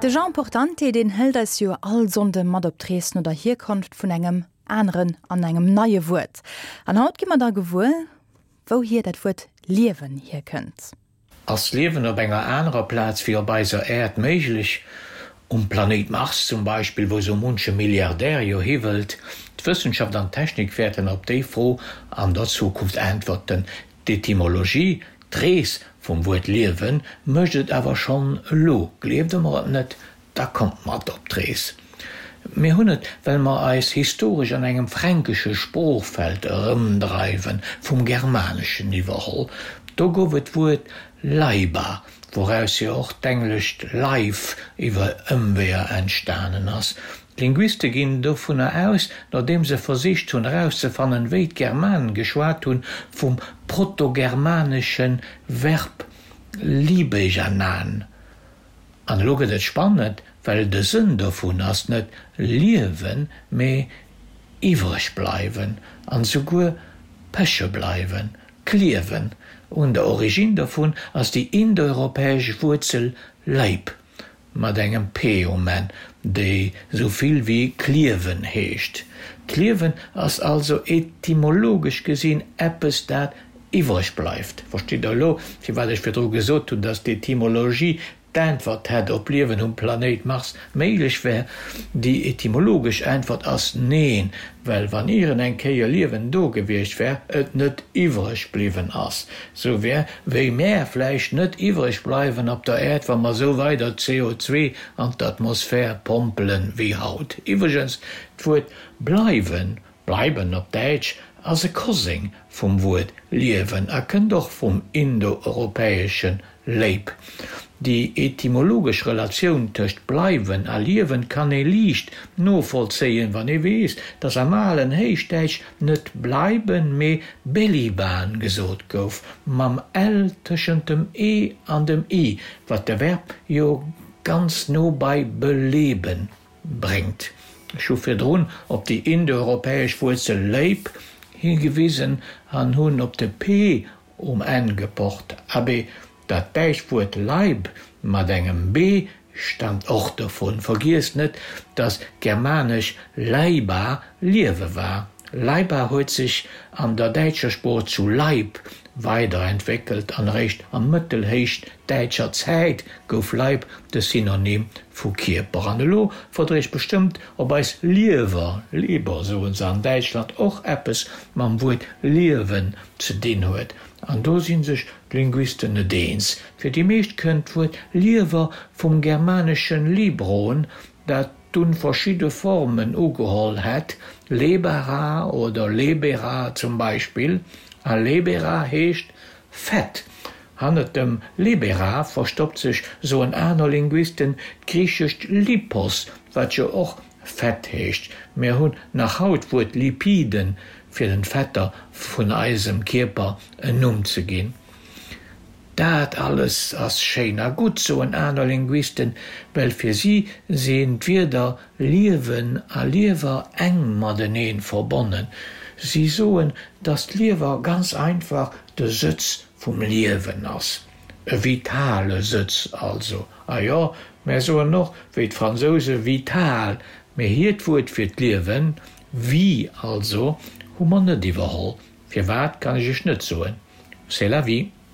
De Jean Portante, deen hëlt eis jo all Sonnde mat op d'Rees no der Hierkonft vun engem aneren an engem neie Wuert. An haut gi mer da gewuer, wouhier dat Wuert Liewen hierkënnt. Ass Liewen op enger anerer Plaz wéi op eiser Äerd méiglech? Um Planéit Mars zum Beispill, wou sou munche Milliardär jo hi wëllt? D'Wëssenschaft an d'Technik wäerten op déi Fro an der Zukunft äntwerten. D'Etymologie, d'Rees vum Wuert Liewen, mécht et awer schonn elo. Gleeft Der mer et net, da kommt mat op d'Rees. Mir hunn et, well mer eis historesch an engem fränkesche Sproochfeld erëmdreiwen, vum Germaneschen iwwerholl. Do gouf et d'Wuert leiba, wouraus jo och d'englescht life iwwer Ëmweeër entstanen ass. D'Linguiste ginn dovunner aus, nodeem se versicht hunn erauszefannen, wéi d'Germanen geschwat hunn, vum protogermanesche Verb libejanan. An elo gëtt et spannend, well de Sënn dovun ass net liewen, mee iwwreg bleiwen an esouguer peche bleiwen, kliewen. Un der Originn dovun ass déi indoeuropäesch Wuerzel leib. Mat engem p um Enn, déi sou vill wéi kliewen heescht. Kliewen ass also etymologesch gesinn eppes, dat iwwreg bleift. Verstitt Der elo, firwat ech virdru gesot hunn, dass d'Etymologie d'Äntwert hätt, ob Liewen um Planéit Mars méiglech wär? Déi etymologesch Äntwert ass neen, well wann ieren eng Kéier Liewen do gewiescht wär, et net iwwreg bliwwen ass. Sou wär, wéi mär vläicht net iwwreg bleiwen op der Äerd, wa mer sou weider CO2 an d'Atmosphär pompelen wéi haut. Iwwregens, d'Wuert bleiwen, bleiben op Däitsch, ass e Koseng vum Wuert liewen a kënnt och vum indoeuropäesche Léip. Déi etymologesch Relatioun tëscht bleiwen a liewen kann ee liicht novollzéien, wann ee weess, datt am alen Héichdäitsch net bleiben, mee beliban gesot gouf, mam l tëschent dem e an dem i, wat de Verb jo ganz no bei beleben bréngt. Ech hu virdrun op déi indoeuropäesch Wuerzel léip higewisen an hunn op de p Um Enn gepocht. Abee, dat däitscht Wuert Leib mat engem b staamt och dovun. Vergiesst net, dass germanesch leiba Liewe war. Leiba huet sech an der däitscher Sprooch zu Leib weiderentwéckelt an eréischt a mëttelhéichdäitscher Zäit gouf Leib de Synonym vu Kierper. An elo frot der iech bestëmmt, ob eis Liewer, Leber soen se an Däitschland, och eppes mam Wuert Liewen ze dinn huet. An do si sech d'Linguisten net eens. Fir déi meescht kënnt d'Wuert Liewer vum germaneschen libron, dat dunn verschidde Formen ugeholl hätt, lebara oder lebera zum Beispill. A lebera heescht Fett. Hannert dem lebera verstoppt sech, soen aner Linguisten, d'griichescht lipos, wat jo och Fett heescht. Mir hunn nach haut d'Wuert Lipiden, fir den Fetter vun eisem Kierper en Numm ze ginn. Dat alles ass schéin a gutt, soen aner Linguisten, well fir si sinn d'Wierder Liewen a Liewer enk matenee verbonnen. Si soen, dass d'Liewer ganz einfach de Sëtz vum Liewen ass. E vitale Sëtz also. A jo, mär soen och, wéi d'Fransouse, vital, mee hiert Wuert fir d'Liewen, vie also, hu mer net iwwerholl. Firwat, kann ech iech net soen. C'est la vie.